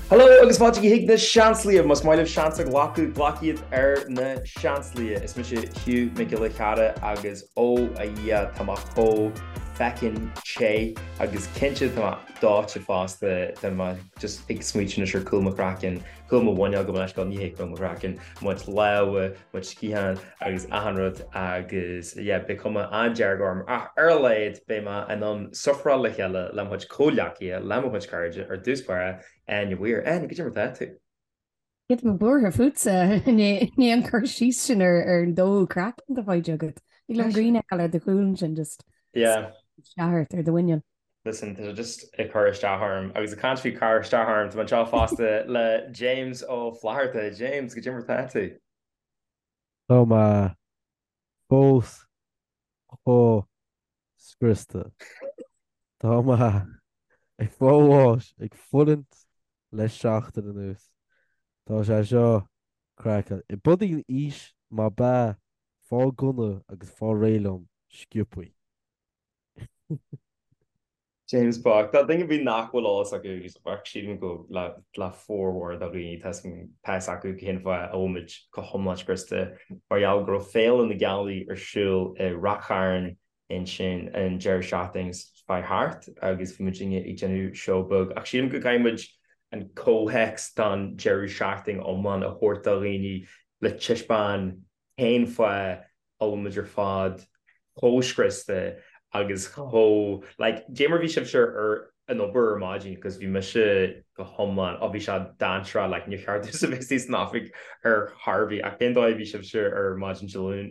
Hello agus fáilte chuig na Seansálaithe! Más maith libh seans a ghlacadh, glac iad ar na Seansálaithe. Is mise Hugh Mac Giolla Cheara agus ó a Dhia tá mé chomh feckin' te agus cinnte tá mé dóite fosta, tá mé just ag smaoitiú anois ar cúl mo chraicinn, cúl mo mhuineál gabh mo leithscéal, ní hé cúl mo chraicinn, mo chuid lámha, mo chuid sciathán agus achan rud agus yeah beidh cuma an-dearg orm ach ar a laghad beidh mé in ann sufferáil le chéile le mo chuid comhghleacaithe, le mo chuid cairde, ar dtús báire, Áine Weir. Áine, goidé mar atá tú? Tá mé buartha fútsa, ní an cur síos sin ar an dó craiceann atá faighte agat. Thig liom grian a fheiceáil ar do chúl ansin just Yeah. isteach ort ar do mhuineál. Listen, tá sé just ag cur isteach orm agus ag caint faoi cur isteach orm, tá mé anseo fosta le James Ó Flatharta. James, goidé mar atá tú? Tá mé fós chomh scriosta. Tá mé ag fáil bháis, ag fulaingt le seachtain anuas. Tá sé seo craiceáilte. I bpudaí aois má b'ea fáil gunna agus fáil réidh liom sciobthaí. James bocht. Tá duine ar bith nach bhfuil eolas acu agus bheadh sílim go le le formhór de dhaoine tá fhios acu cén fáth a bhfuil muid go hiomlán scriosta mar gheall go raibh Féile na Gealaí ar siúl i Rath Chairn ansin an deireadh seachtaine seo chuaigh thart agus bhí muidinne ag déanamh seó beag ach sílim go gcaithfidh muid an comhthéacs don deireadh seachtaine iomlán a thabhairt do dhaoine le taispeáin cén fáth a bhfuil muid ar fad chomh scriosta agus chomh like goidé mar bhí sibhse ar an obair ar maidin cos bhí mise go hiomlán oh bhí sé dainséarach like níor cheart domhsa bheith istigh san oifig ar chor ar bith ach cén dóigh a bhí sibhse ar maidin Dé Luain?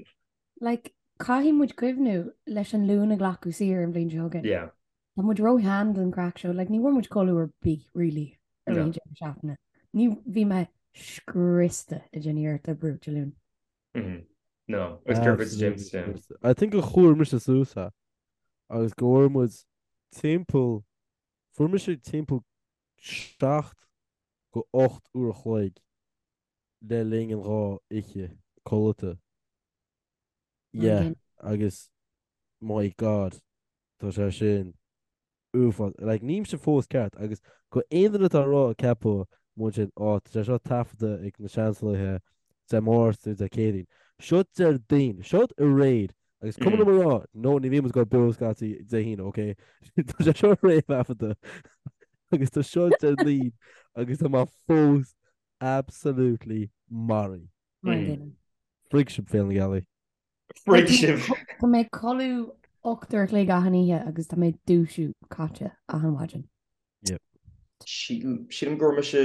Like caithfidh muid cuimhniú leis an Luan a ghlacadh saor an bhliain seo chugainn. Yeah. Tá muid ró-shean don chraic seo like ní bhfuair muid codladh ar bith really ar an deireadh seachtaine. Ní bhí mé scriosta ag déanamh iarracht oibriú Dé Luain. No. Agus céard fút James? Yeah. I think gur chuir mise suas é agus go bhfuair muid timpeall, fuair mise timpeall 7 go 8 uair a chloig le linn an dhá oíche codlata. Yeah, agus my God, tá sé sin uafás. Like, nílimse fós ceart agus go aon duine atá ag rá ag ceapadh muid sin, á, tá sé seo taifeadta ag na Seansálaithe Dé Máirt nó Dé Céadaoin. Seo Déardaoin. Seo aréir. Agus cuma liom a rá, no, ní bhíonn muid ag dul beo scaití Dé hAoine, ok? Tá sé seo réamhthaifeadta agus tá seo Déardaoin agus tá mé fós absolutely maraithe. Mar an gcéanna. Frig sibh Féile na Gealaí. Frig sibh! Tá mé ag codladh 8 uair a chloig achan oíche agus tá mé ag dúisiú caite achan mhaidin. Yep. Sílim go raibh mise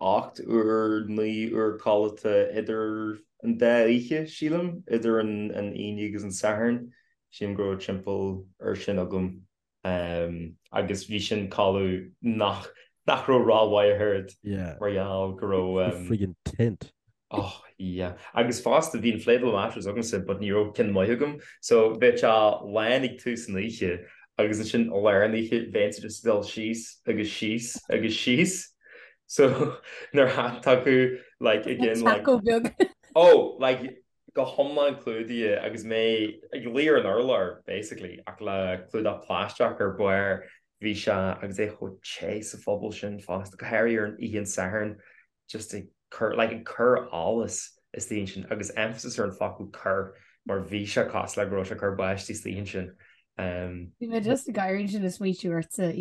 8 uair, 9 uair codlata idir an dá oíche, sílim, idir an Aoine agus an Satharn. Sílim go raibh timpeall ar sin agam. Agus bhí sin codladh nach nach raibh rómhaith ach oiread mar gheall go raibh. Friggin tent. Oh yeah. Agus fosta bhí inflatable mattress agamsa but ní raibh ceann maith agam so bheadh sé lán ag tús an oíche agus ansin i lár an oíche bheinnse just ag dul síos agus síos agus síos so nuair a thagadh like again like Taco beag. Oh like go hiomlán clúdaithe agus mé ag luí ar an urlár basically ach le clúdach plaisteach ar barr bhí sé agus é chomh te sa phuball sin fosta go háirithe ar an oíche an Sathairn just ag cur like ag cur allas istigh ansin agus emphasis ar an focal cur mar bhí sé cosúil le go raibh sé ag cur báistí istigh ansin. Um, Bhí mé just ag gáire ansin ag smaoitiú ortsa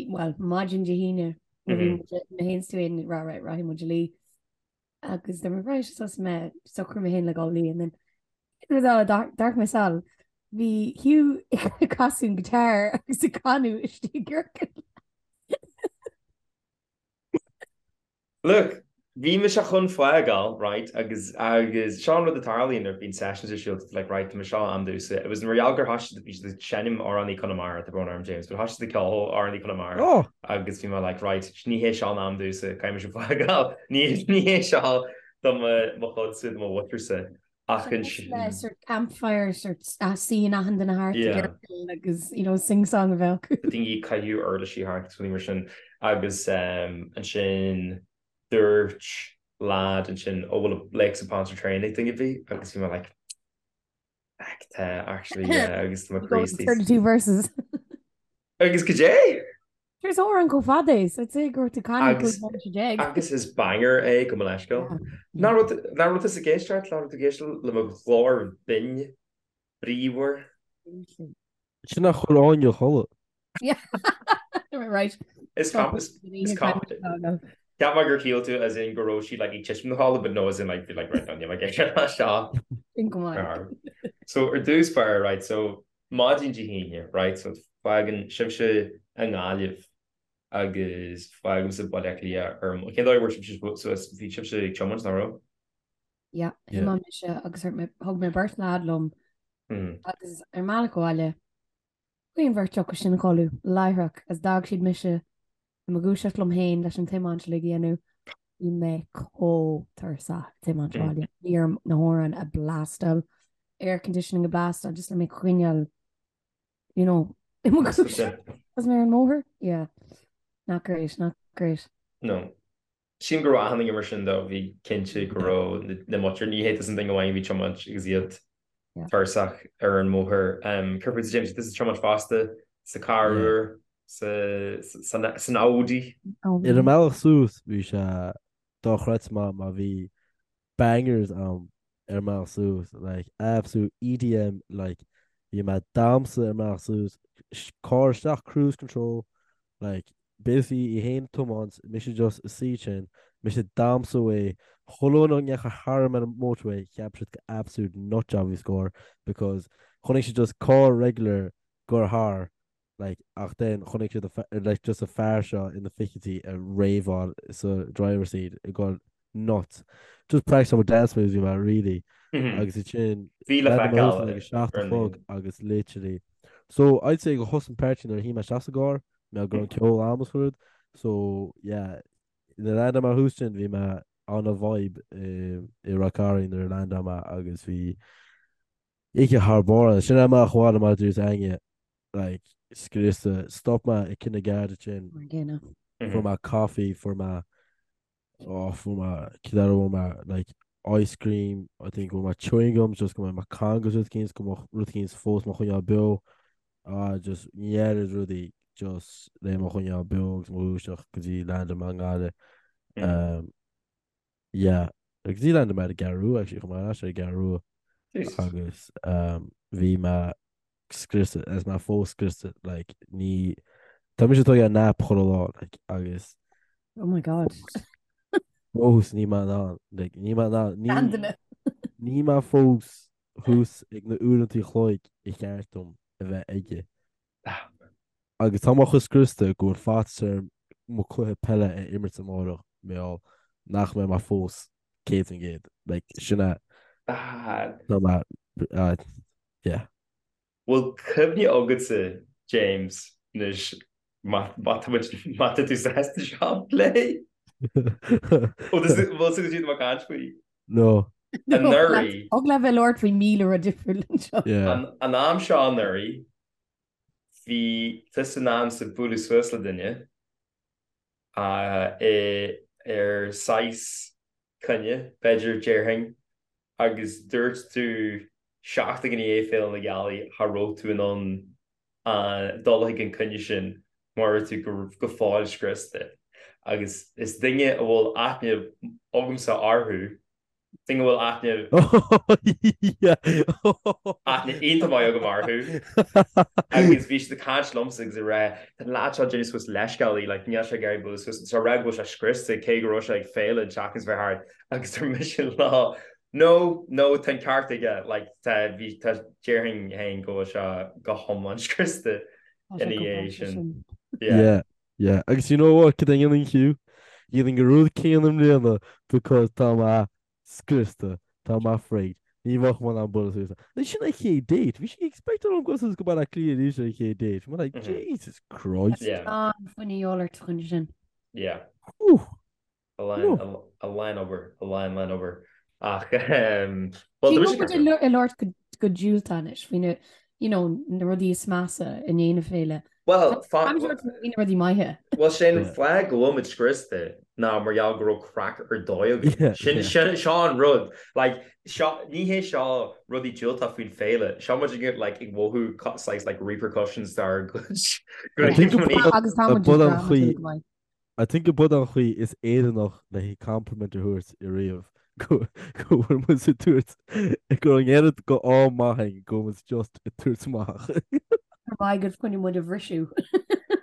well maidin Dé hAoine mé féin is tú ag rá right rachaidh muid a luí. agus dúirt mé right sos mé socrú mé féin le dhul a luí and then rud eile d'amharc mé sall bhí Hugh ag casadh an guitar agus ag canadh istigh i gciorcal. Look, bhí mise chun fágáil, right, agus agus seo an rud a tarlaíonn nuair a bhíonn sessions ar siúl, like, right, tá mé seo am domhsa. It was mar gheall gur thoisigh siad, bhí siad ag seinm amhránaí Conamara, tá brón orm James, but thoisigh siad ag ceol amhránaí Conamara. Oh! agus bhí mé like right ní hé seo an am domhsa caithfidh mise fágáil ní ní hé seo do mo mo chuidse do mo mhuintirse ach ansin Le sort campfire sort suíonn achan duine thart i gciorcal agus you know sing song a bheith acu. daoine ag caitheamh uirlisí thart agus rudaí mar sin agus ansin dúirt lad ansin ó bhfuil Lakes of Pontchartrain ag duine ar bith agus bhí mé like Heck tá actually yeah agus tá mo chroí 32 verses. Agus goidé? Is amhrán chomh fada é, so I'd say go raibh tú canadh 15 bomaite. Agus is banger é gabh mo leithscéal. Nach raibh tusa ag éisteacht, nach raibh tú ag éisteacht le mo ghlór binn bríomhar? Sin a chuir Áine a chodladh. Right. Is com is is com Cheap mé gur shíl tú as in go raibh sí like ag titim 'na chodladh but no as in like be like right níl mé ag éisteacht leis seo. Sin go maith. So ar dtús báire right so maidin Dé hAoine right so fágann sibhse i nGaillimh agus fágaimse Baile Átha Cliath ar cén dóigh a bhfuair sibhse suas bhí sibhse ag tiomáint nach raibh? Yeah, thiomáin mise agus thug mé beirt leaid liom agus ar an mbealach abhaile chuaigh an bheirt acu sin a chodladh láithreach agus d'fhág siad mise i mo dhúiseacht liom féin leis an tiomáint uilig a dhéanamh. Bhí mé chomh tuirseach ag tiomáint abhaile. Bhí orm na hamhráin a blastáil, air conditioning a blastáil just le mé coinneáil you know, i mo dhúiseacht agus mé ar an mbóthar. Yeah. Not great, not great. No. Sílim go raibh achan duine mar sin though, bhí cinnte go raibh na muintir, ní hé tusa an duine amháin a bhí ag tiomáint agus iad tuirseach ar an mbóthar. Céard fútsa James, tusa ag tiomáint fosta sa carr úr, san Audi? Ar an mbealach suas bhí sé dochreidte maith mar bhí bangers ann ar an mbealach suas like absolute EDM like bhí mé ag damhsa ar an mbealach suas carr isteach cruise control like basically í fhéin ag tiomáint mise just ag suí ansin mise ag damhsa away chuile dhuine a ndeachaigh tharam ar an motorway cheap siad gur absolute nut job a bhí sa gcarr because chonaic siad just carr regular ag goil thar like ach then chonaic siad a like just a fear seo ina fichidí ag raveáil sa driver seat ag goil nuts. Just practice my dance moves bhí mé really agus ansin Bhí le feiceáil ag a 7 a chlog agus literally so I'd say gur thosaigh an party nuair a shuigh mé isteach sa gcarr mé go raibh an ceol a'm is rud so yeah nuair a landáil mé thuas sin bhí mé on a vibe i Ráth Cairn nuair a landáil mé agus bhí oíche thar barr ann. Sin é amach abhaile mar a dúirt Áine like scriosta. Stop mé ag Cionn na Garda ansin. Mar an gcéanna. Fuair mé coffee, fuair mé, oh fuair mé, cad eile a fuair mé, like ice cream, I think fuair mé chewing gum just go mbeidh mé cangas rud eicínt, go mbeadh rud eicínt fós mo choinneáil beo. Ah just an oiread rudaí just le mo choinneáil beo agus mo dhúiseacht go dtí landáil mé i nGaillimh. Um, Yeah, go dtí landáil mé ar an gCeathrú Rua actually, chuaigh mé ar ais ar an gCeathrú Rua Jesus. agus um, bhí mé scriosta, is mé fós scriosta, like, ní, tá mise ag tógáil nap chuile lá, like, agus Oh my God. fós níl mé in ann, like, níl mé in ann, ní, Seanduine. níl mé fós thuas ag na uaireanta an chloig ba cheart dom a bheith aige. Agus tá mé chomh scriosta go bhfuil faitíos orm mo cluiche peile a imirt amárach mar gheall nach mbeidh mé fós 100%. Like, sin é. Tá mé, yeah. Bhfuil cuimhne agatsa, James, anois má má tá muid má tá tú sásta seo a phlé? Bhfuil tú bhfuil tú go dtí caint faoi? No. Anuraidh. Thig leat bheith ag labhairt faoi 1000 rud difriúil anseo. Yeah. An am seo anuraidh, bhí tusa in ainm is bualadh suas le duine ar saghas coinne, b'fhéidir, déarfainn, agus dúirt tú seachtain i ndiaidh Féile na Gealaí cha raibh tú in ann dul chuig an coinne sin mar raibh tú go fóill scriosta. Agus is duine a bhfuil aithne agamsa orthu, duine a bhfuil aithne aithne iontach maith agam orthu agus bhí siad ag caint liomsa agus ag rá tá an leaid seo ag déanamh suas leithscéalaí like níl sé ag iarraidh bualadh suas so rá go bhfuil sé scriosta cé go raibh sé ag féile an tseachtain seo thart agus dúirt mise leo no no tá an ceart aige like tá bhí tá déarfainn féin go bhfuil sé go hiomlán scriosta ina dhiaidh sin. Yeah. Yeah, yeah. Agus you know what, cad é a dhéanfainn Hugh? Dhéanfainn an rud céanna i mbliana because tá mé scriosta, tá mé frigged. Ní bheadh mé in ann bualadh suas. Like, sin an chéad date. Bhí sí ag expect orm goil suas go Baile Átha Cliath arís ar an chéad date. Bhí mé like, Jesus Christ. Yeah. Tá fuinneamh de dhíobháil ort chun sin. Yeah. Whew. A lán, a lán obair, a lán, lán obair. Ach, bhuel, tá mise ag labhairt go diúltach anois faoi na. you know, na rudaí is measa i ndiaidh na féile. Well, na rudaí maithe. Well, sé an fáth go bhfuil muid scriosta ná mar gheall go raibh craic ar dóigh againn. Sin sin seo an rud. Like, seo ní hé seo rudaí diúltach faoin féile. Seo muid ag like ag mothú saghas like repercussions dár gcuid. Agus tá muid drámatúil go maith. I think go b'in an chaoi is Éireannach le haghaidh compliment a thabhairt i riamh go go bhfuil muid ag tabhairt go raibh an oiread go ádh maith againn go bhfuil muid just ag tabhairt amach. Ar mhaith go choinnigh muid a bhriseadh.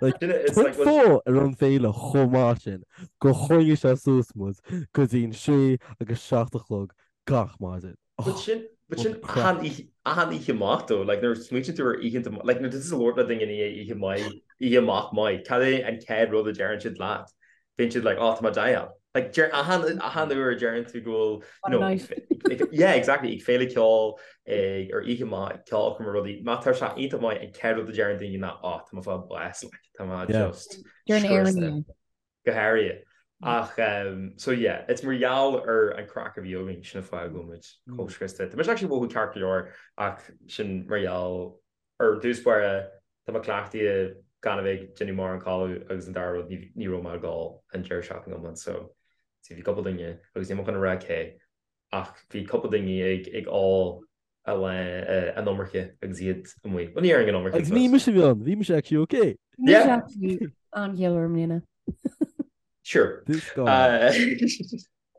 Like, cén fáth a raibh an féile chomh maith sin gur choinnigh sé suas muid go dtí an sé agus 7 a chlog gach maidin. But sin, but sin achan oíche, achan oíche amach though, like nuair a smaoitíonn tú ar oícheanta, like nuair atá tú ag labhairt le duine i ndiaidh oíche maith, oíche amach maith, cad é an chéad rud a deireann siad leat? Bíonn siad like, oh, tá mé dial. Like deir achan, achan uair a deireann tú go bhfuil, you know, ag, yeah, exactly, ag féile ceoil, ag, ar oíche maith, ceolchoirm or rudaí, má tá sé iontach maith, an chéad rud a deireann daoine ná, oh, tá mé ag fáil bás, like, tá mé just Deir an Éireannaigh. go háirithe. Ach so yeah, it's mar gheall ar an craic a bhí againn, sin an fáth go bhfuil muid chomh scriosta. Tá mise actually ag mothú ceart go leor ach sin mar gheall ar dtús báire tá mé cleachtaithe gan a bheith ag déanamh mórán codladh agus an dara rud ní raibh mé ag ól an deireadh seachtaine iomlán so see bhí cúpla duine agus níl mé chun a rá cé ach bhí cúpla duine ag ag ól a lán an iomarca agus iad amuigh. Bhuel ní déarfainn an iomarca Agus ní mise a bhí ann, bhí mise actually okay. Bhí mise actually an-chiallmhar i mbliana. Sure. This guy.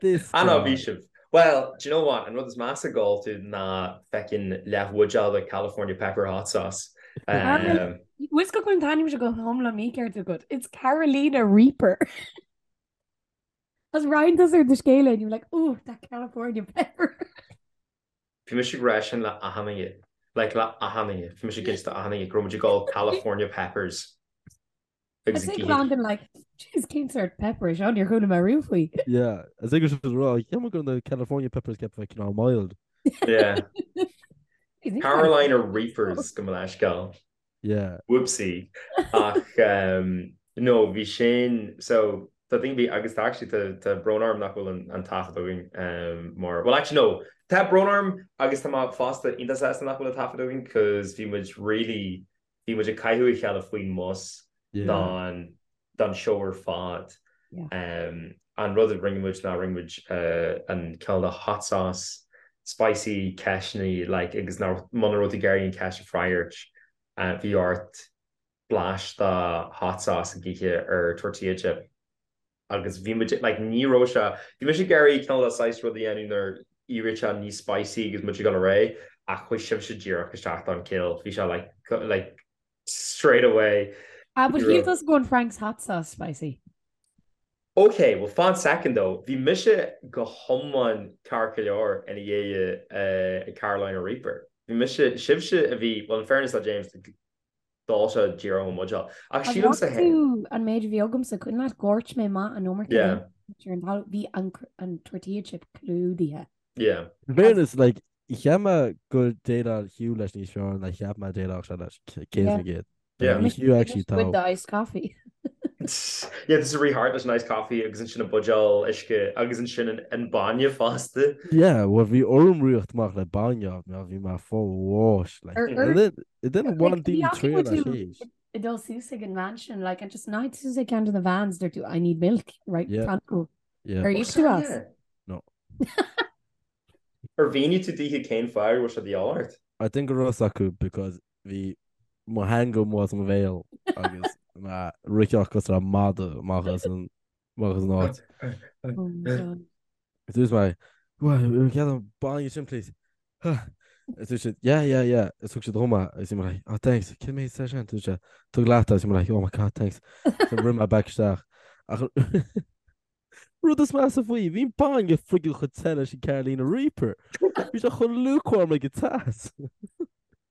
This Ah no, guy. bhí sibh. Well, do you know what? An rud is measa ag ól tú ná feckin leathbhuidéal de California Pepper Hot Sauce. Um, Bhfuil go an t-ainm seo go hiomlán mícheart agat. It's Carolina Reaper. As roinn tusa ar do scéal and you were like, ooh, that California pepper. Bhí mise ag rá sin le achan duine, like le achan duine, bhí mise ag inse do achan duine go raibh muid ag ól California peppers agus ag ithe. I'd like, jeez, cén sort pepper é seo, níor chuala mé riamh faoi. Yeah, is é go raibh rá, cheap mé go raibh na California peppers ceaptha bheith cineál mild. Yeah. Carolina Reapers gabh mo leithscéal. Yeah. Whoopsie. Ach um, no, bhí sin, so tá daoine bhí agus tá actually tá tá brón orm nach bhfuil an, an taifead againn um, mar well actually no, tá brón orm agus tá mé fosta iontach sásta nach bhfuil an taifead againn cos bhí muid really bhí muid ag caitheamh a chéile faoin mbus Yeah. don don seó ar fad. Yeah. Um, an rud a rinne muid ná rinne muid uh, an cineál de hot sauce spicy ceisteanna like agus ná muna raibh tú ag iarraidh an ceist a freagairt uh, bhí ort blais de hot sauce ag ithe ar tortilla chip agus bhí muid like ní raibh sé bhí mise ag iarraidh cineál de saghas rud a dhéanamh nuair éiríonn sé níos spicy agus muid ag dul ar aghaidh ach chuaigh sibhse díreach isteach don kill bhí sé like like straight away. Ah, but shíl tusa go raibh an Frank's hot sauce spicy. Ok, well fan second though, bhí mise go hiomlán ceart go leor ina dhiaidh uh, Carolina Reaper. Bhí mise, sibhse a bhí, well in fairness le James, d'ól sé díreach ón mbuidéal. Ach sílimse An bhfaca tú an méid a bhí agamsa, cuimhin leat dhoirt mé amach an iomarca Yeah. ar an talamh, bhí an, an tortilla chip clúdaithe. Yeah. In fairness, like, cheap mé gur dhéileáil Hugh leis níos fearr ná cheap mé dhéileálfadh sé leis, 100%. Yeah. Bhí Hugh actually With tá. the iced coffee. Yeah, this is really hard leis an iced coffee agus ansin an buidéal uisce agus ansin an, an bainne fosta. Yeah, well bhí orm rith amach le bainne, mar bhí mé fá bháis, like. Ar- ar- And then, and then Like, bhain bhí daoine acu triail as tú théis. ag dul suas ag an van sin, like, and just night suas ag ceann de na vans, dúirt tú, I need milk, right, Yeah. pronto. Yeah. Ar íoc tú as? Yeah. No. Ar mhínigh tú daoithe cén fáth a raibh sé de dhíobháil ort? I think go raibh a fhios acu because bhí mo theanga amuigh as mo bhéal agus mé ag rith cosúil le madadh amach as an amach as an áit. Oh my God. Dúirt mé, Well, get an bainne sin please. Is dúirt siad, yeah, yeah, yeah. Is thug siad dhom é agus bhí mé like, oh thanks, cén méid sé sin? Dúirt sé, tóg leat é. Agus bhí mé like, oh my god, thanks. So rith mé back isteach. Ach Rud is measa faoi, bhí an bainne friggin chomh te leis an Carolina Reaper. Bhí sé chomh lukewarm ag an teas.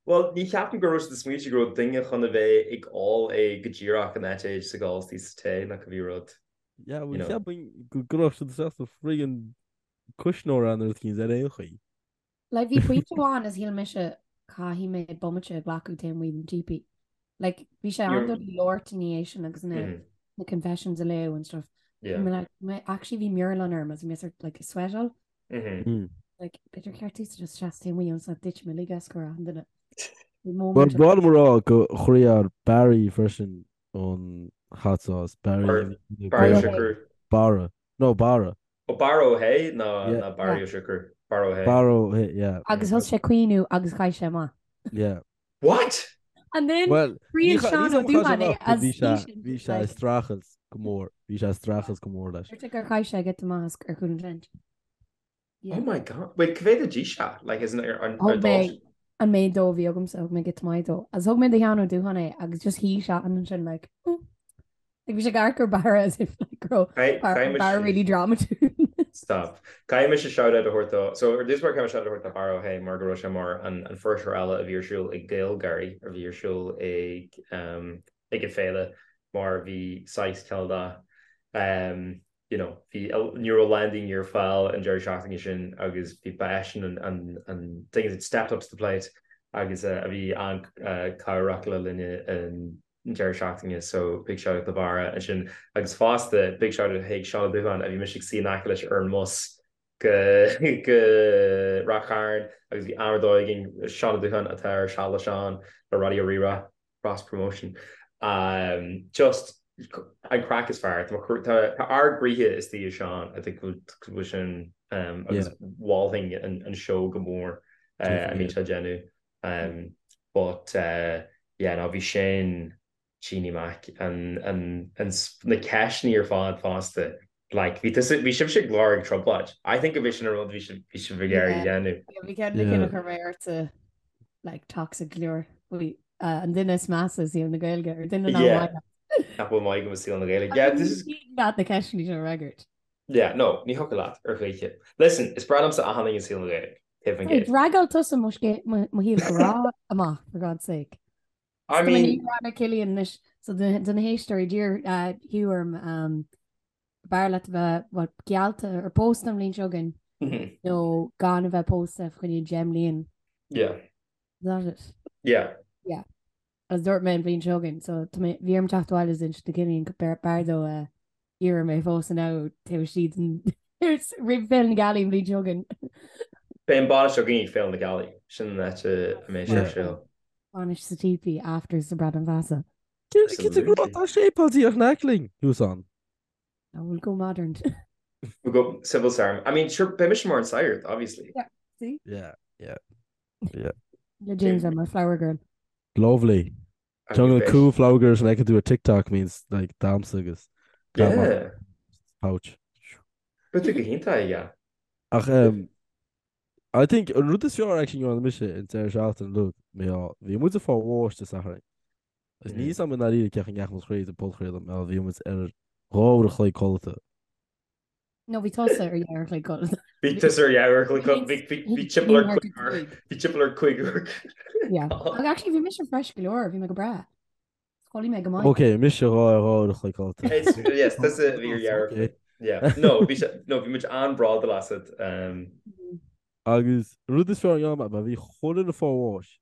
Bhuel, ní cheapaim go raibh siad ag smaointiú go raibh duine chun a bheith ag ól é go díreach in áit é just ag ól istigh sa tae nó cibé rud. Yeah, You well, know. cheapfainn go gcuirfeadh siad isteach sa friggin cuisneoir é nó rud eicínt ar aon chaoi. Like, bhí pointe amháin is shíl mise caithfidh mé bomaite a ghlacadh taobh amuigh den teepee. Like, bhí sé an-doiligh labhairt ina dhiaidh sin agus na, Mhm. na confessions a léamh and stuff. Yeah. Bhí mé like, mé, actually bhí mearbhall orm agus bhí mé sort like sweatáil. Mhm. Mm. Like, b'fhéidir ceart just seasamh taobh amuigh ionas nach dtitfidh mé uilig as go raibh an duine. Bhí Bhuel, moment ba mhaith liom a rá gur chroith Barry freisin an hot sauce. Barry a bhí ina Barry Ó Gael. Siochrú. Barra. No, Barra. Ó Barra Ó hÉ ná Yeah. ná Barry Yeah. Ó Siochrú. Barra Ó hÉ. Barra Ó hÉ, yeah. Agus thosaigh sé ag caoineadh agus chaith sé amach. Yeah. What? And then Well, ní thriail cha- Seán ní Ó cha- chaith sé Dúbháin é amach, but as bhí sé seisean bhí sé ag like streachailt go mór. Bhí sé ag streachailt go mór leis. Dúirt sé gur chaith sé giota maith as ar chúl an tent. Yeah. Oh my God. Wait, cá mhéad a d'ith sé? Like, isn't it ar Thug ar mé dul? an méid dó a bhí agamsa, thug mé giota maith dó. Agus thug mé do Sheán Ó Dúbháin é agus just shuigh sé ansin like, mm. Like bhí sé ag amharc ar Barra as if like go raibh Caithfidh Barra mise really dramatúil. Stop. Caithfidh mise shout-out a thabhairt dó. So ar dtús báire caithfidh mé shout-out a thabhairt do Barra Ó hÉ mar go raibh sé mar an an fuirseoir eile a bhí ar siúl ag GaelGáirí a bhí ar siúl ag um, ag an féile mar bhí saghas cineál de um, you know, bhí ní raibh a lán daoine ar fáil an deireadh seachtaine sin agus bhí ba eisean an an an duine that stepped up to the plate agus uh, a bhí an-chabhrach le linn an deireadh seachtaine so big shout out do Bharra ansin agus fosta big shout out chuig Seán Ó Dúbháin a bhí mise ag suí in aice leis ar an mbus go go Ráth Chairn agus bhí am ar dóigh againn Seán Ó Dúbháin atá ar Seal le Seán le Raidió Rí-Rá cross promotion um, just an craic is fearr tá tá ár gcroíthe istigh i Seán I think go bhfuil sin um, agus mholfainn an, an seó go mór uh, a mbíonn sé ag déanamh Um, but uh, yeah, no, bhí sin Jeannie Mac an, an, an, na ceisteanna ar fad fosta. Like, bhí tusa, bhí sibhse ag lorg trioblóid. I think go bhí sin an rud bhí sibh, bhí sibh ag iarraidh a dhéanamh. Yeah, bhí ceann de cinn a chuir mé ortsa like toxic go leor. Bhí uh, an duine is measa i saol na Gaeilge ar duine nach Yeah. maith leat. Nach bhfuil maith agam i saol na Gaeilge. Yeah, this is Ní leat na ceisteanna seo a fhreagairt. Yeah, no, ní thiocfadh leat ar choíche. Listen, is breá liomsa achan duine i saol na Gaeilge. Taobh an Hey, gcéad. D'fhreagair tusa mo scé- mo mo shaol grá amach, for God's sake. I Tá mé mean, ní rá Cillian anois, so do do na héisteoirí d'iarr uh, Hugh orm um, b'fhearr leat a bheith well, geallta ar pósta an bhliain seo chugainn mhm, nó gan a bheith pósta fá choinne 10 mbliain. yeah, Is that it? yeah. Yeah. Agus dúirt mé an bhliain seo chugainn, so tá mé bhí orm teacht abhaile is inse do Cillian go b'fhearr dó uh, iarraidh mé a phósadh now taobh istigh den roimh Féile na Gealaí an bhliain seo chugainn. Beidh an bainis againn ag Féile na Gealaí, sin an áit a mbeidh sé ar Yeah. siúl. Bainis sa típí after sa Bradán Feasa. Cinnte go raibh tá séipéal díreach in aice linn, thuas ann. I will go modern. We'll go civil ceremony. I mean, sure, beidh mise mar an sagart, obviously. Yeah, see? Yeah, yeah, yeah. Le James I'm a flower girl. Lovely. Jungle cool flower girls and I can do a TikTok means like damsa agus Yeah. pouch. But tú go hiontach, yeah. Ach um, I think an rud is fearr actually ndearna mise an deireadh seachtaine look mé á bhí muid ag fáil bháis Dé Sathairn. Agus níl a fhios agam i ndáiríre cén chaoi a ndeachaigh muid thríd an podchraoladh mar bhí muid ar 2 uair a chloig codlata. No, bhí tusa ar dhá uair a chloig codlata. Bhí tusa ar dhá uair a chloig codlata. Bhí bhí bhí timpeall ar cúig uair. Bhí timpeall ar cúig uair. Yeah. Ach actually bhí mise fresh go leor, bhí mé go breá. Chodlaigh mé go maith. Ok, mise dhá ar dhá uair a chloig codlata. It's, yes, tusa a bhí ar dhá uair a chloig. Yeah. No, bhí sé, no, bhí muid an-bhródúil asat. Um, Agus an rud is fearr a ndearna mé, bhí chuile dhuine ag fáil bháis.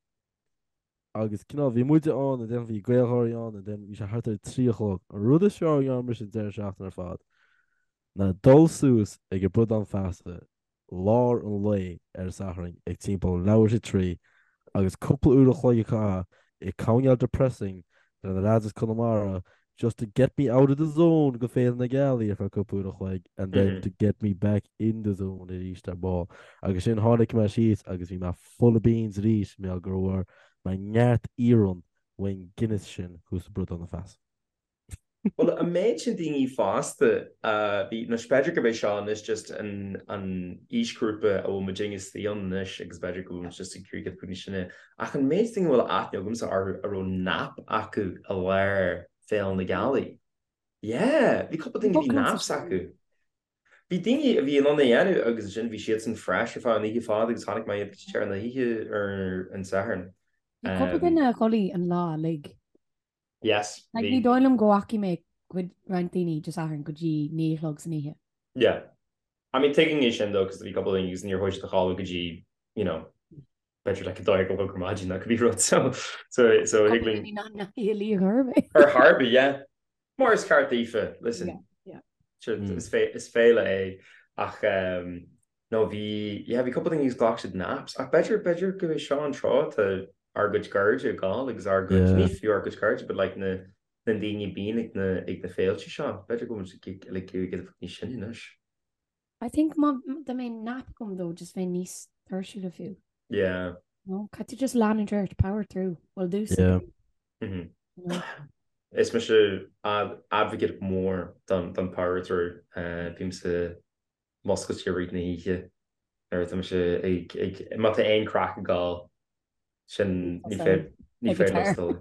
Agus cineál, bhí muide ann and then bhí GaelGháirí ann and then bhí sé thart ar a 3 a chlog. An rud is fearr a ndearna mise an deireadh seachtaine ar fad ná dul suas ag an Bradán Feasa lár an lae ar an Satharn ag timpeall leathuair tar éis a 3 agus cúpla uair a chloig a chaitheamh ag coinneáil depressing le na lads as Conamara just to get me out of the zone go Féile na Gealaí ar feadh cúpla uair a chloig and then to get me back in the zone arís ar ball. Agus sin tháinig mé síos agus bhí mé full of beans arís mar go bhfuair mé neart iarann ón Guinness sin thuas i Bradán na Feasa. Bhuel, an méid sin daoine fásta a bhí, nó b'fhéidir gurb é seo anois just an an aoisghrúpa a bhfuil muid istigh ann anois agus b'fhéidir go bhfuil muid just ag iarraidh giota níos sine, ach an méid daoine a bhfuil aithne agamsa orthu a raibh nap acu i lár Féile na Gealaí. Yeah, bhí cúpla daoine a bhí naps acu. Bhí daoine a bhí in ann é a dhéanamh agus ansin bhí siadsan fresh ar feadh an oíche fada agus chonaic mé iad go dtí deireadh na hoíche ar an Satharn. Bhí cúpla duine a chodlaigh an lá uilig. Yes, Like bhí. ní dóigh liom go bhfacaigh mé cuid roinnt daoine Dé Sathairn go dtí 9 a chlog san oíche. Yeah. I mean tuigim é sin though cos bhí cúpla daoine agus níor chuaigh siad a chodladh go dtí, you know, b'fhéidir like 2 a chlog ar maidin nó cibé rud so so so thig Cúpla linn daoine nach ndeachaigh a luí ar chor ar bith. ar chor ar bith, yeah. Mar is ceart daofa, listen. Yeah, yeah. Sure, is fé- is féile é ach um, no bhí yeah bhí cúpla daoine agus ghlac siad naps ach b'fhéidir b'fhéidir go é seo an tráth tá. ár gcuid cairde ag gabháil agus ár gcuid, ní fiú ár gcuid cairde but like na na daoine a bíonn ag na ag na féilte seo. B'fhéidir go bhfuil muid like ag iarraidh níos sine anois. I think má dá mbeadh nap agam though just bheinn níos tuirsiúla fiú. Yeah. No, caithfidh tú just leanúint ort, power through. Well domsa. Yeah. Mm -hmm. No. Is mise advocate mór don don power through. Uh, bímse muscailte i rith na hoíche nuair atá mise ag ag má tá aon craic ag gabháil sin ní féidir ní féidir liom stop.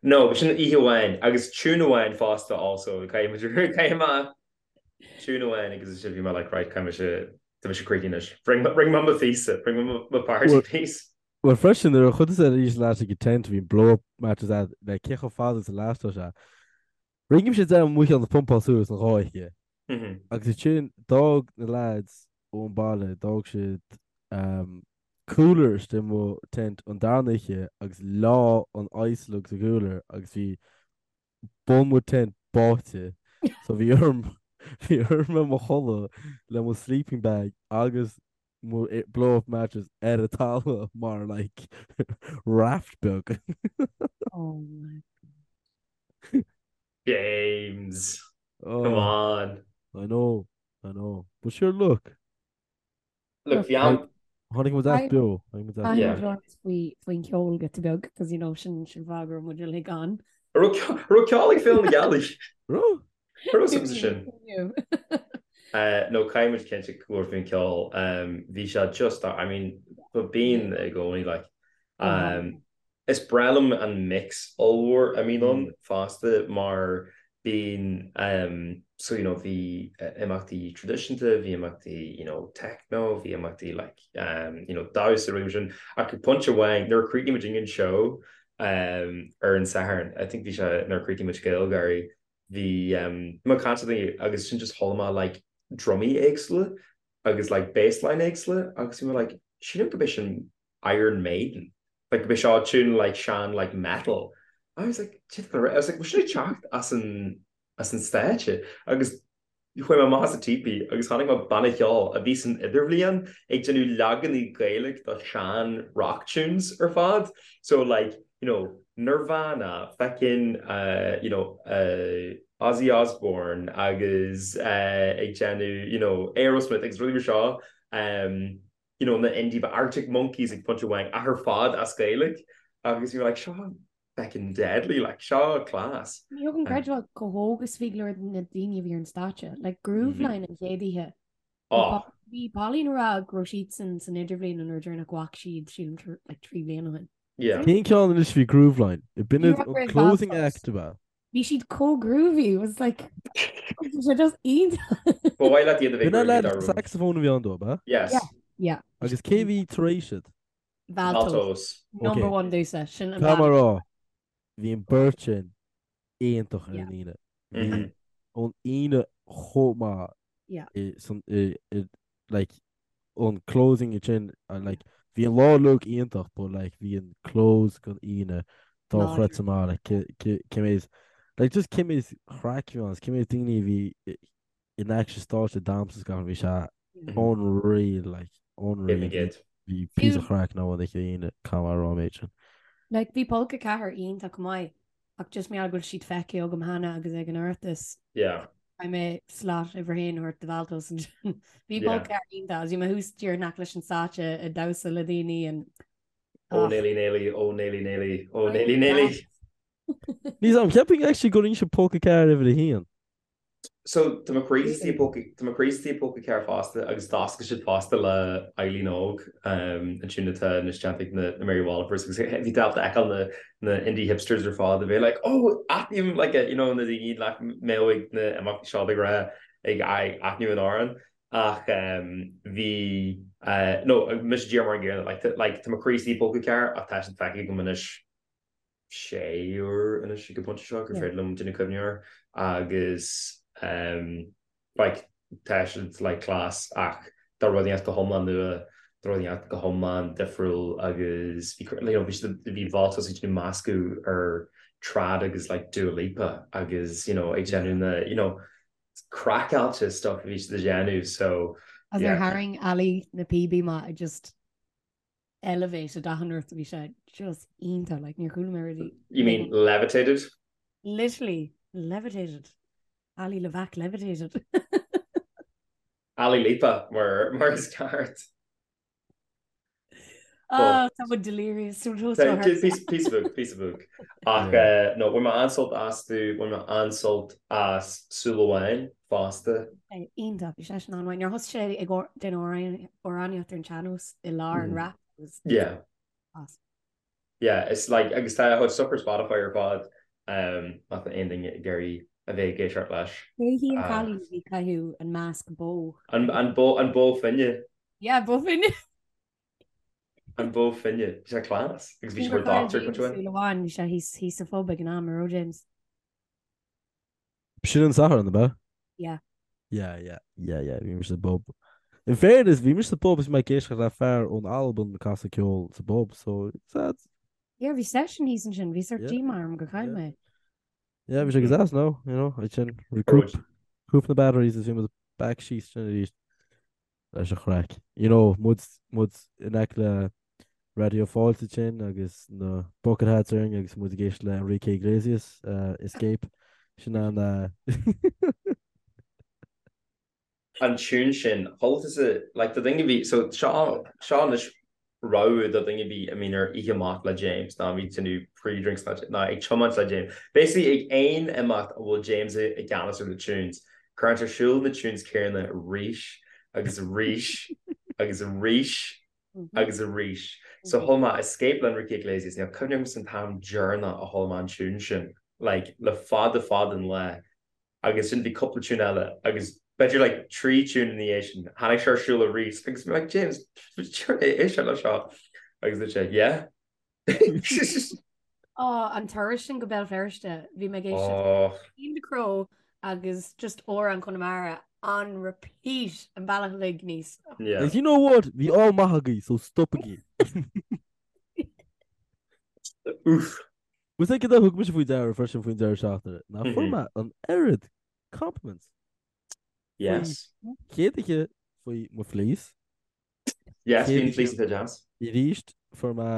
No, sin oíche amháin agus tune amháin fosta also caithfidh muid caithfidh mé tune amháin agus sin bhí mé like right caithfidh mise tá mise críochnaithe anois. Rinne mé mo phíosa, rinne mé mo party piece. Well freisin nuair a chuaigh tusa arís leat ag an tent bhí blow up mattress agat le cé chomh fada is a lastódh sé. Rinne mise déanamh mo cheann a phumpáil suas an dhá oíche. Agus ansin d'fhág na lads ón baile, d'fhág siad cooler istigh i mo tent an darna oíche agus leá an ice lug sa cooler agus bhí bun mo tent báite. So bhí orm bhí orm bheith i mo chodladh le mo sleeping bag agus mo blow up mattress ar an talamh mar like raft beag. Oh my James! Come on! I know, I know. But sure look. Look, bhí am... Tháinig muid as beo. Tháinig muid as beo. Caithfidh muid faoin cheol giota beag, cos you know sin sin fáth go raibh muid uilig ann. Raibh ceol ag Féile na Gealaí? Raibh? Raibh suim sa sin. No, caithfidh muid cinnte go bhfuil faoin cheol. Bhí sé just, I mean, bíonn i gcónaí like. Is breá liom an mix ollmhór a mbíonn ann fosta mar bíonn so you know bhí imeachtaí traidisiúnta, bhí imeachtaí you know techno, bhí imeachtaí like you know damhsa rudaí mar sin ach ag pointe amháin nuair a chríochnaigh muid an seó ar an Satharn, I think bhí sé nuair a chríochnaigh muid GaelGÁIRÍ, bhí mé ag caint le daoine agus sin just chuala mé like drumaí éagsúla agus like bassline éagsúla agus bhí mé like sílim gurb é sin Iron Maiden. Like bhí seo tune like sean like metal. I was like I was like bhfuil sin ag teacht as an as an stáitse agus chuaigh mé amach as an teepee agus chonaic mé banna cheoil a bhí san idirbhliain ag déanamh leaganaí Gaeilge do sean rock tunes ar fad. So like you know Nirvana, feckin uh, you know uh, Ozzy Osbourne agus uh, ag déanamh you know Aerosmith agus rudaí mar seo um, you know, na indie ba Arctic Monkeys ag pointe amháin ach ar fad as Gaeilge agus you were like seo feckin deadly like seo class. Ní thug an creidbheáil chomh hóg is bhí go leor de na daoine a bhí ar an stáitse, like Grooveline an chéad oíche. Oh. Bhí Pauline ag rá go raibh siadsan san idirbhliain an uair deireanach go bhfaca siad sílim like 3 bliana ó shin. Yeah. Cén ceann anois bhí Grooveline? B'in Ní raibh an closing Valtos. act ab ea? Bhí siad chomh groovy, it was like, bhí sé just iontach. Ba mhaith leat iad a bheith B'in an groovy lad dá raibh. saxophone a bhí ann dó, ab ea? Yes. Yeah, yeah. Agus cé bhí tar éis iad? Valtos. Valtos. Number Okay. one domhsa, sin an Tá band. mar rá, bhí an beirt sin iontach ar Yeah. an Aoine. Mhm. Bhí an Aoine chomh maith Yeah. i san i i like an closing ansin like bhí an lá uilig iontach but like bhí an close den Aoine dochreidte maith like cé méid like just cé méid craic a bhí ann cé méid daoine a bhí in aice stáitse damhsa is gach bhí sé unreal like unreal bhí píosa craic ann an oíche Aoine caithfidh mé a rá an méid sin. Like bhí Polca 4 iontach maith ach just mar gheall go bhfuil siad feicthe agam cheana agus ag an Oireachtas. Yeah. Caithfidh mé slot uimhir a haon a thabhairt do Valtos ansin. Bhí Polca 4 iontach agus bhí mé thuas díreach in aice leis an stáitse ag damhsa le daoine and Ó Néilí Néilí, ó Néilí Néilí, ó Néilí Néilí. Níl a fhios agam, cheapfainn actually gur inse Polca 4 uimhir a haon. So tá mo chroí istigh i bPolca, tá mo chroí istigh i bPolca 4 fosta agus d'oscail siad fosta le Eileen Óg, an tune atá anois déanta ag na Mary Wallopers agus bhí tú ábalta fheiceáil na na indie hipsters ar fad a bheith like oh aithním like you know na daoine nach mbeadh ag na imeachtaí seo de ghnáth ag aithniú an amhrán ach bhí no mise díreach mar an gcéanna like like tá mo chroí istigh i bPolca 4 ach tá siad feicthe agam anois sé uair anois ag an bpointe seo gur féidir liom déanamh cuimhne air agus like tá siad like class ach tá rud inteacht go hiomlán nua, tá rud inteacht go hiomlán difriúil agus bhí you know bhí siad bhí Valtos ag déanamh meascadh ar trad agus like Dua Lipa agus you know ag déanamh na you know craiceáilte stuff a bhí siad ag déanamh so As ar tharraing Ali na píobaí maith I just. elevated achan rud bhí sé just iontach like níor chuala mé really. You mean levitated? Literally levitated. Ali Levac levitated. Ali Lipa mar mar is ceart. Oh, tá muid delirious. Piece piece of book, piece of book. Ach eh, no, bhain mé an-sult astu, bhain mé an-sult as Súil Amháin fosta. Iontach, bhí sé sin an-mhaith. Nuair a thosaigh sé ag déanamh amhránaíocht ar an sean-nós i lár an rap. Yeah. Awesome. Yeah, it's like, agus tá a chuid stuff ar Spotify ar fad, um, má tá aon duine ag iarraidh a bheith ag éisteacht leis. Cé hí an cailín a bhí ag caitheamh an masc bó? An, an bó, an bó finne. Yeah, bó finne. An bó finne. Bhí sé class. Agus bhí sé mar doctor chuid mhaith. Súil amháin, bhí sé thíos, thíos sa phub ag an am, an raibh James? Sin an Satharn, ab ea? Yeah. Yeah, yeah, yeah, yeah, bhí mise sa bpub. In fairness, bhí mise sa bpub is bhí mé ag éisteacht le fear ón Albain ag casadh ceoil sa bpub, so it's that. Yeah, bhí session thíos ansin, bhí sort Yeah. díomá orm gur chaill Yeah. mé. Yeah, bhí sé go deas no, you know, ansin recoup, recoup na batteries is bhí muid back síos sin arís. leis an chraic. You know, muid, muid in aice le Raidió Fáilte ansin agus na bucket hats orainn agus muid ag éisteacht le Enrique Iglesias, uh, Escape. Sin an, uh, an tune sin, chuala tusa, like, do dhuine a bhí, so seo, seo anois rabhadh do dhuine a bhí, I mean, ar oíche amach le James, ná bhí tú pre-drinks ná, ná ag tiomáint le James. Basically, ag aon imeacht a bhfuil James i i gceannas ar na tunes, cuireann sé ar siúl na tunes céanna arís agus arís agus arís agus arís. So chuala mé Escape le Enrique Iglesias, níl cuimhne agam an t-am deireanach a chuala mé an tune sin, like, le fada fada an lá. agus sin bhí cúpla tune eile agus b'fhéidir like 3 tune ina dhiaidh sin tháinig sé ar siúl arís agus bhí like James éist le seo agus dúirt sé yeah. Ó an turas sin go Béal Feirste bhí mé ag éisteacht Oh. Cian Ducrot agus just amhrán Chonamara on repeat an bealach uilig aníos. Yeah. And you know what? Bhí ádh maith agaibh, so stopaigí. Oof. Bhfuil a fhios agat cad a thug mise faoi deara freisin faoin deireadh seachtaine, ná fuair mé an oiread compliments. Yes. Chéad oíche faoi mo fleece. Yes, bhí an fleece deas. Arís fuair mé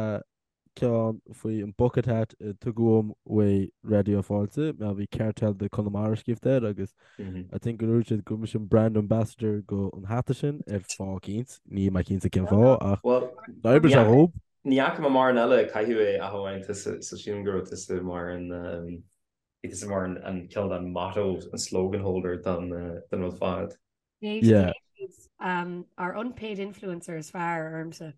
ceann faoi an bucket hat a tugadh dom uaidh Raidió Fáilte, mar bhí Cartel de Conamara scríofa air agus I think go ndúirt siad go raibh mise an brand ambassador go an hata sin ar fáth eicínt, níl mé cinnte cén fáth ach d'oibrigh sé dhób. Ní fhaca mé mórán eile ag caitheamh é ach amháin tusa, so sílim go raibh tusa mar an, bhí tusa mar an cineál den motto, an slogan holder don don rud fad. Yeah. Um, our unpaid influencer is fearr ormsa.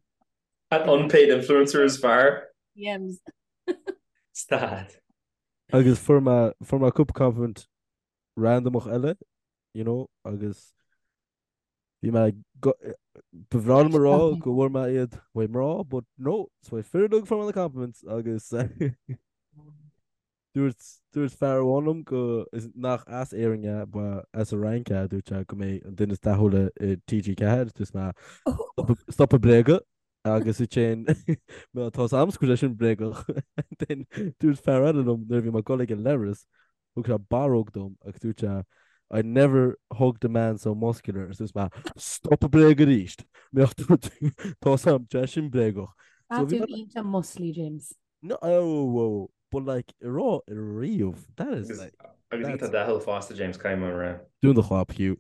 An unpaid influencer is fearr? Yems. Stad. Agus fuair mé fuair mé cúpla compliment randomach eile, you know, agus Bhí mé go, ba bhreá liom a rá go bhfuair mé iad uaidh mná, but no, is uaidh fir uilig a fuair mé na compliments agus dúirt, dúirt fear amháin liom go, is nach as Éirinn é, ba as an Fhrainc é, dúirt sé go mé an duine is dathúla i TG4, dúirt mé stop ag bréagadh agus ansin tá a fhios agam go bhfuil sé sin bréagach. Then dúirt fear eile liom nuair a bhí mé ag dul ag an leithreas, Thug sé barróg dom agus dúirt sé I never hugged a man so muscular agus dúirt mé Stop ag bréagadh arís! Mbeadh tú tá a fhios agam tá sé sin bréagach. Tá tú iontach muscly James. No oh whoa but like a rá riamh that is like Agus iontach dathúil fosta James caithfidh mé a rá. Dún do chlab Hugh.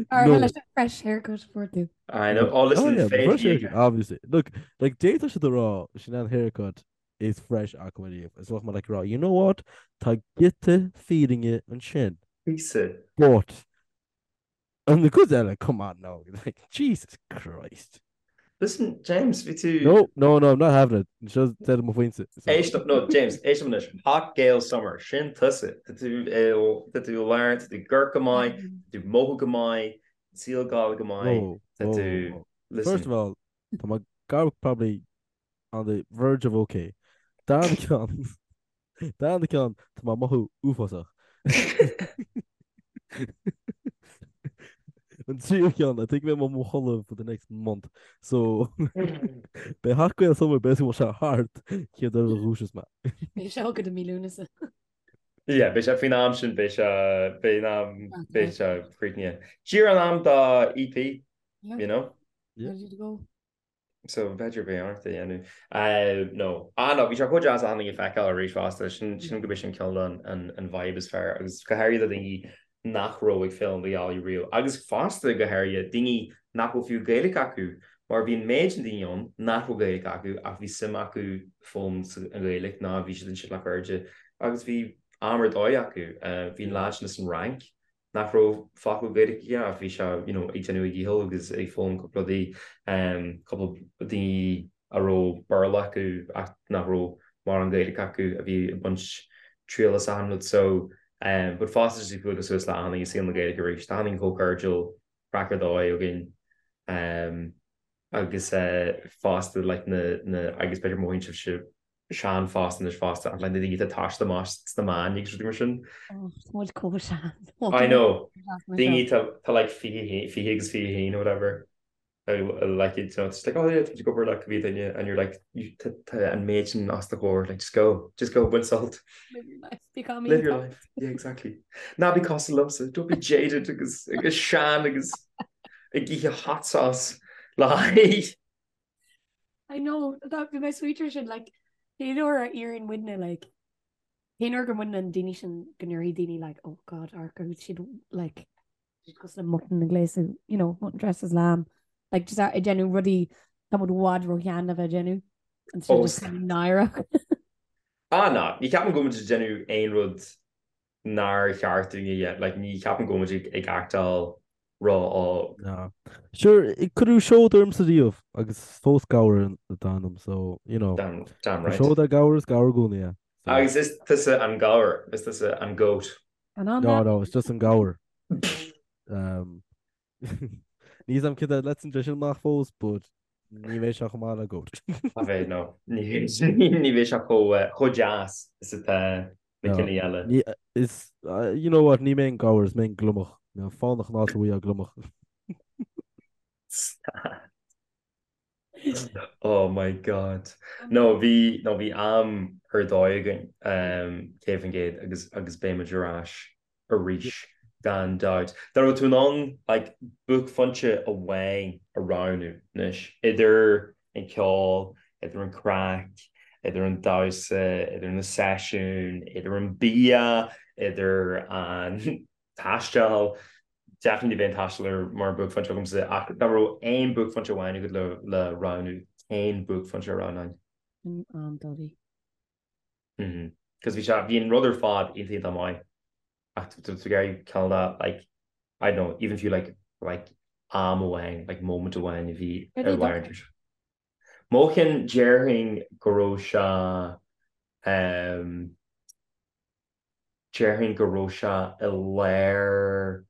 Ar no. leis an fresh haircut fuair tú. I know. Oh listen, oh, yeah, fresh haircut, obviously. Look, like d'fhéadfadh siad a rá sin an haircut is fresh acu ariamh. Is bheadh mé like ag rá, you know what, tá giota fírinne ansin. Píosa. But, an cuid eile, come on now, like, Jesus Christ. Listen, James, bhí tú... No, no, no, I'm not having it. Seo deireadh mo phointe. Éist, no, James, éist anois. Hot Gael Summer, sin tusa. Tá tú, tá tú i lár, tá tú ag amharc go maith, tá tú mothú go maith, saol ag gabháil go maith, tá tú, listen. First of all, tá mé gar probably on the verge of ok. Darna ceann, darna ceann, tá mé ag mothú uafásach. An tríú ceann, I think beidh mé i mo chodladh for the next month. So, beidh Hot Gael Summer basically bhfuil sé thart chéad uair a dhúiseos mé. Beidh sé agat i mí Lúnasa. Yeah, beidh sé faoin am sin, beidh sé, beidh an am, beidh sé críochnaithe. Díreach in am do EP, you know? Yeah. Ready to go. So b'fhéidir beidh ort é a dhéanamh. No. Ah no, bhí sé chomh deas achan duine a fheiceáil arís fosta. Sin sin go b'é sin cineál an an vibe is fearr agus go háirithe do daoine nach raibh ag Féile na Gealaí riamh agus fosta go háirithe daoine nach bhfuil fiú Gaeilge acu mar bhí an méid sin daoine ann nach raibh Gaeilge acu ach bhí suim acu foghlaim an Ghaeilge ná bhí siad ansin le cairde agus bhí am ar dóigh acu. Bhí an leaid sin as an Fhrainc nach raibh focal Gaeilge aige ach bhí sé you know ag déanamh a dhícheall agus ag foghlaim cúpla rudaí, cúpla daoine a raibh Béarla acu ach nach raibh mórán Gaeilge acu a bhí ag baint triail as achan rud so but fosta just ag bualadh suas le achan duine i saol na Gaeilge arís, tá achan duine chomh cairdiúil, craic ar dóigh againn agus fosta like na na agus b'fhéidir mothaíonn sibhse sean fosta anois fosta ach like na daoine atá ag taisteal amach sna meáin agus rudaí mar sin. Oh, tá muid chomh sean. I know. Daoine tá like 20 20 agus 21 or whatever. Like you know, it's like oh yeah, tá go obair like bhí duine and you're like tá an méid sin os do chomhair like just go, just go bain sult. Live your life. Become Live your life. Yeah, exactly. Ná bí cosúil liomsa, don't be jaded agus agus sean agus ag ithe hot sauce le haghaidh. I know, that bhí mé sweeter sin, like, cén uair a éiríonn muidne, like, cén uair go mbaineann daoine sin go ndéarfaidh daoine, like, oh God, amharc orthu siad, like, siad cosúil le mutton ag gléasadh, you know, mutton dressed as lamb, like, just ag déanamh rudaí tá muid i bhfad ró-shean le bheith ag déanamh, and so just kind of náireach. Ah, ná, ní ceapaim go bhfuil muid ag déanamh aon rud nár cheart dúinn a dhéanamh, like, ní cheapaim go bhfuil muid ag actáil ró-óg. Ná. Sure, cuireadh seod ormsa riamh agus fós gabhar atá ionam, so, you know. Damn, damn right. Seod ar gabhar is gabhar i gcónaí é. So. Agus is tusa an gabhar, is tusa an goat. An an No, no, it's just an gabhar. Um, Níl a fhios agam cad é leis an sin amach fós, but ní bheidh sé chomh maith le goat. Ní bheidh, no. Ní bheidh sé chomh deas is atá na cinn eile. Ní, is, you know what, ní mé an gabhar, is mé an gliomach. Mé fánach an áit a bhfuil gliomach. Oh my God. No, bhí, no, bhí am ar dóigh againn, 100% agus, agus beidh muid ar ais arís, gan dabht. Dá raibh tú in ann, like, buaicphointe amháin a roghnú anois, idir an ceol, idir an craic, idir an damhsa, idir na seisiúin, idir an bia, idir an taisteal, Definitely bheadh an taisteal ar mar buaicphointe agamsa ach dá raibh aon buaicphointe amháin agat le le roghnú, cén buaicphointe a roghnóinn? An am Duddy. Mhm. Cos bhí sé, bhí an rud ar fad iontach iontach maith ach tú tú ag iarraidh cineál de like, I don't know, even if you like like am amháin, like moment amháin a bhí Cad ar é do lár an Mo cheann déarfainn go raibh sé ehm Déarfainn go raibh sé i lár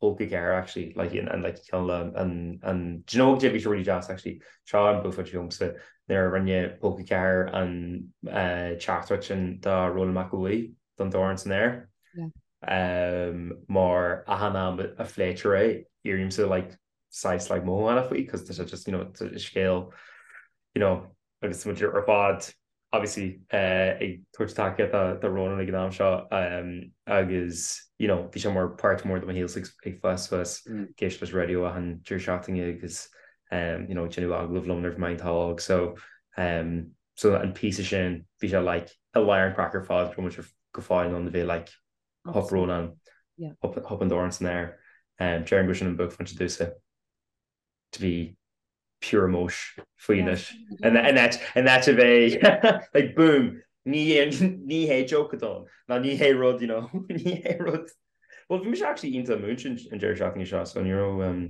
Pólca 4 actually, like an an like cineál le an an do you know cad é bhí sé really deas actually, seo an buaicphointe domsa nuair a rinne Pólca 4 an teachtaireacht sin do Rónán Mac Aodha Bhuí don Dorn san Aer. Yeah. Mar achan am a phléitear é, éirímse like saghas like mothúchánach faoi cos tá sé just you know scéal you know agus muid ar fad obviously ag tabhairt tacaíocht do Rónán ag an am seo agus you know bhí sé mar páirt mór de mo shaol ag fás suas ag éisteacht leis an raidió achan deireadh seachtaine agus you know ag déanamh agallamh liom nuair a bhí mé iontach óg so so an píosa sin bhí sé like i lár an craic ar fad go raibh muid go fóill in ann a bheith like hup Rónán hup an dorn san aer déarfainn go sin an buaicphointe domhsa. to be pure emotion faoi anois. In áit a bheith like boom ní ní hé joke atá ann ná ní hé rud you know ní hé rud. Well bhí mise actually iontach múinte an deireadh seachtaine seo so ní raibh um,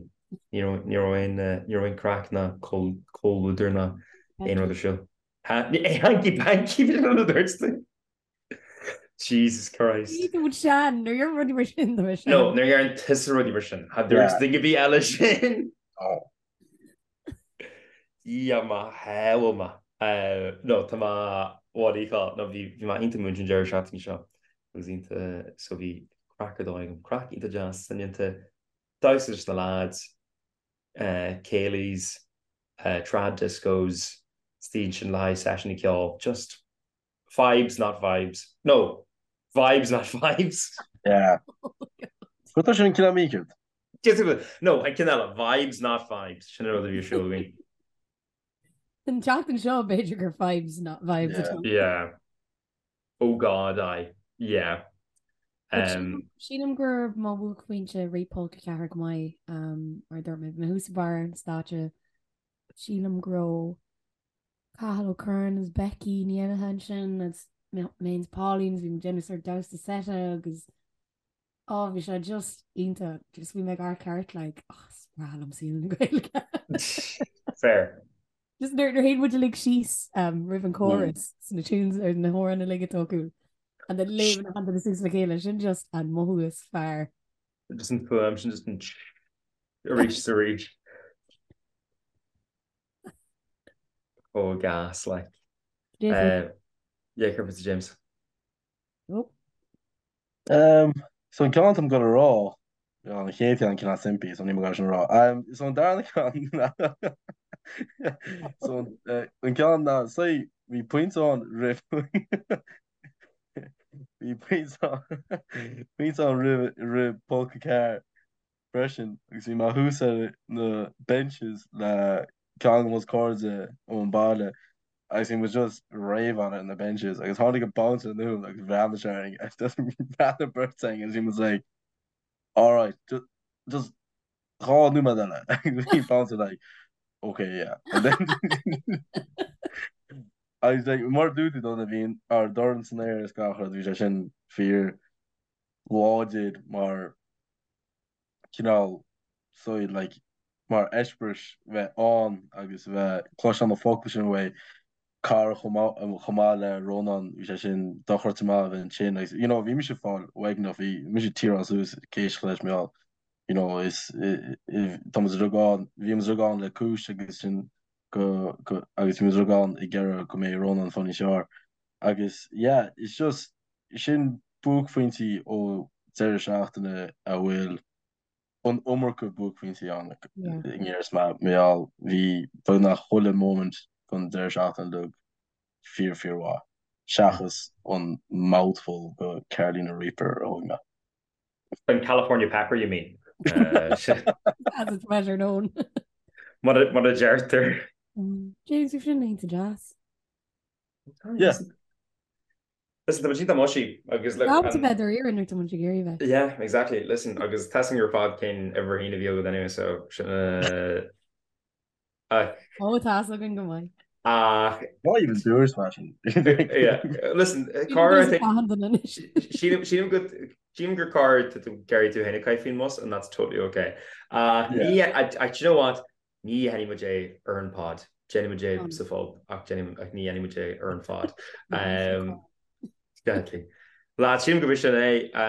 ní raibh ní raibh aon eh, ní raibh aon craic ná comhluadar ná aon rud ar siúl. Ha, hanky panky bhí an rud dúirt Jesus Christ. Ní tú sean, nuair a deirim rudaí mar sin do sean. No, nuair a deireann tusa rudaí mar sin. Cha dúirt duine ar bith eile sin. Dia mo shábháil mé. No, tá mé, what do you call it? No, bhí bhí mé iontach múinte an deireadh seachtaine seo. Agus iontach, so bhí craic ar dóigh agam. Craic iontach deas, soineanta. Damhsa leis na lads, céilís, trad discos, istigh ansin le haghaidh seisiúin ceoil. Just Fibes not vibes. No, vibes not fibes. Yeah. Go tá sin cineál mícheart. No, an ceann eile, vibes not fibes. Sin an rud a bhí ar siúl againn. An tseachtain seo b'fhéidir gur vibes not vibes Yeah. atá. Yeah. Oh God, aye. Yeah. But Um, Sílim gur mo bhuaicphointe rith Pulc 4 go maith um, mar dúirt mé, bhí mé thuas ag barr an stáitse. Sílim go raibh Cathal Ó Curráin is Becky Ní Fhinneadha ansin agus mé féin is Pauline agus bhí muid ag déanamh sort damhsa seite agus oh bhí sé just iontach. Just bhí mé ag amharc thart like oh is breá liom saol na Gaeilge. Fair. Just nuair nuair théann muid uilig síos um, roimh an chorus sna tunes ar na hamhráin uilig atá acu and then léimeann achan duine suas le chéile sin just an mothú is fearr. Just an fuaim sin just an arís is arís. Oh gas like. Jason. Uh, yeah, céard fútsa James. Oh. Um, so an ceann táim ag gabháil a rá, an chéad cheann cineál simplí, so níl mé ag gabháil sin a rá. Um, so an darna ceann so an, uh, an ceann ná, say, bhí pointe ann roimh bhí pointe ann pointe ann roimh roimh Pulc 4 freisin agus bhí mé thuas ar na benches le ceann de mo chairde ón baile agus bhí muid just rave on it na benches agus tháinig an bouncer anonn agus bhreathnaigh sé orainn agus just bhreathnaigh an bheirt againn agus bhí muid like alright just just dhá nóiméad eile agus bhí bouncer like okay yeah and then agus like mar dúirt tú dona bhí ár dorn san aer is gach rud bhí sé sin fíor láidir mar cineál so like mar eispéireas bheith ann agus bheith cloisteáil na focail sin uaidh cara chomh maith chomh maith le Rónán bhí sé sin dochreidte maith a bheith ansin agus you know bhí mise ag fáil uaigneach bhí mise ag tearáil suas ag éisteacht leis mar gheall you know is tá muid uilig ann bhí muid uilig ann le cúis agus sin go go agus bhí muid uilig ann ag iarraidh go mbeidh Rónán fáil níos fearr agus yeah it's just Sin buaicphointí ó deireadh seachtaine a bhfuil an iomarca buaicphointí ann i ngearr mar gheall bhí beagnach chuile moment den deireadh seachtaine uilig fíor fíor mhaith seachas an mouthful de Carolina Reaper a thóg mé. An California Pepper you mean? As it's better known. Mar a deirtear. James, bhí sin iontach deas. Yeah. Listen, tá muid iontach mushy agus look. Ábalta bheith dáiríre nuair atá muid ag iarraidh bheith. Yeah, exactly. Listen, agus tá a fhios againn ar fad cén uimhir a haon a bhí agat anyway, so sin ach. Ó, tá a fhios againn go maith. Ach. Why even dúirt mé sin? Yeah, listen, cara, I think. Sílim sílim go sílim gur cara tá tú ag iarraidh tú féin a chaitheamh faoin mbus and that's totally okay. Ach ní, I, I, do you know what? Ní dhéanfaidh muid é ar an pod. Déanfaidh muid é sa phub ach ach ní dhéanfaidh muid é ar an phod. Definitely. Lads, sílim gurb sin é fá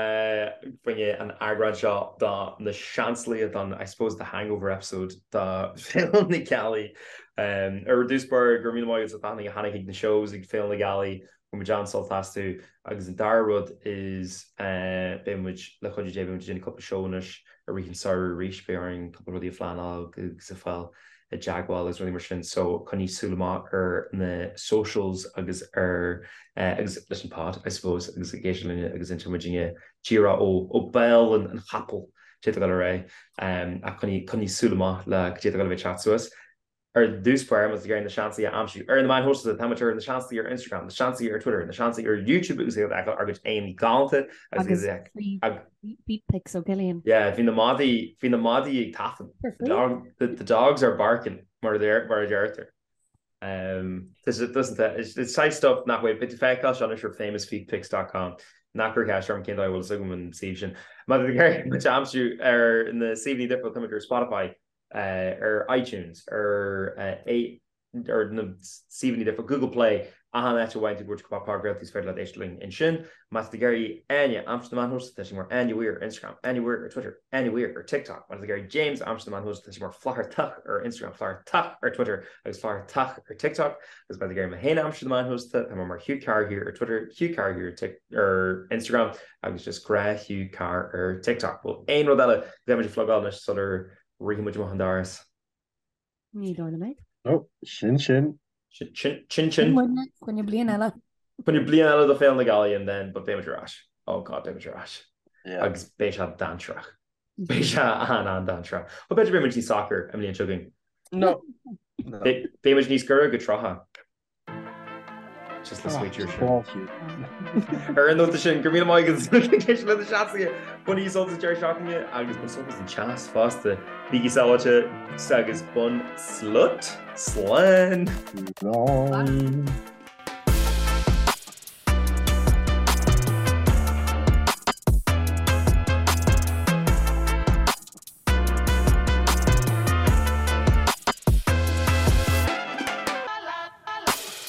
choinne an eagrán seo de na Seansálaithe don, I suppose, the hangover episode de Féile na Gealaí. Ar dtús báire, go raibh míle maith agat as ucht a tháinig chuig na shows ag Féile na Gealaí. Bhain muid an-sult astu agus an dara rud is beidh muid, le cuidiú Dé, beidh muid ag déanamh cúpla seó anois i rith an samhradh arís, beidh orainn cúpla rudaí a phleanáil agus a fáil i dteagmháil agus rudaí mar sin so coinnigh súil amach ar na socials agus ar agus leis an pod I suppose agus ag éisteacht linne agus inseoidh muidinne díreach ó ó bhéal an an chapaill cad é atá ag dul ar aghaidh ach coinnigh coinnigh súil amach le cad é atá ag dul a bheith ag teacht suas. Ar dtús báire, má tá tú ag iarraidh na Seansálaithe a aimsiú ar na meáin shóisialta, tá muid ar na Seansálaithe ar Instagram, na Seansálaithe ar Twitter, na Seansálaithe ar YouTube agus iad a fheiceáil ár gcuid aghaidheanna galánta agus iad ag. Feet pics ó Cillian. Yeah, bhí na madaí, bhí na madaí ag tafann. The dog, the, the dogs are barking, mar a mar a deirtear. Um, it's, it's saghas stuff nach bhfuil, beidh tú feiceáil seo anois ar famousfeetpics.com. Ná cuir ceist orm cén dóigh a bhfuil fhios agam an suíomh sin. Má tá tú ag iarraidh muid a aimsiú ar na suíomhanna difriúla, tá muid ar Spotify, ar iTunes, ar ar na suíomhanna difriúla, Google Play, achan áit a bhfaigheann tú bhur gcuid podchraoltaí is féidir leat éisteacht linn ansin. Má tá tú ag iarraidh Áine a aimsiú sna meáin shóisialta, tá sí mar Áine Weir ar Instagram, Áine Weir ar Twitter, Áine Weir ar TikTok. Má tá tú ag iarraidh James a aimsiú sna meáin shóisialta, tá sé mar Flathartach ar Instagram, Flathartach ar Twitter agus Flathartach ar TikTok. Agus má tá tú ag iarraidh mé féin a aimsiú sna meáin shóisialta, tá mé mar Hugh Carr here ar Twitter, Hugh Carr here ar Instagram agus just gnáth Hugh Carr ar TikTok. Bhfuil aon rud eile go mbeidh muid ag plugáil anois sular rithfidh muid amach an doras? Ní dóigh liom é. No, sin sin. Sin sin sin. Sin muidne, coinne bliain eile. Coinne bliain eile do Féile na Gealaí and then but beidh muid ar ais. Oh God, beidh muid ar ais. Yeah. Agus beidh sé dainséarach. Beidh sé an-an-dainséarach. But b'fhéidir beidh muid níos socair an bhliain seo chugainn. No. Beidh muid níos gaire go 30. Just le sweet sin. Ar an nóta sin, go raibh míle maith agat le do seasamh bainigí sult as an deireadh seachtaine agus bain sult as an teas fosta. Bígí sábháilte agus bain slut. Slán! Slán!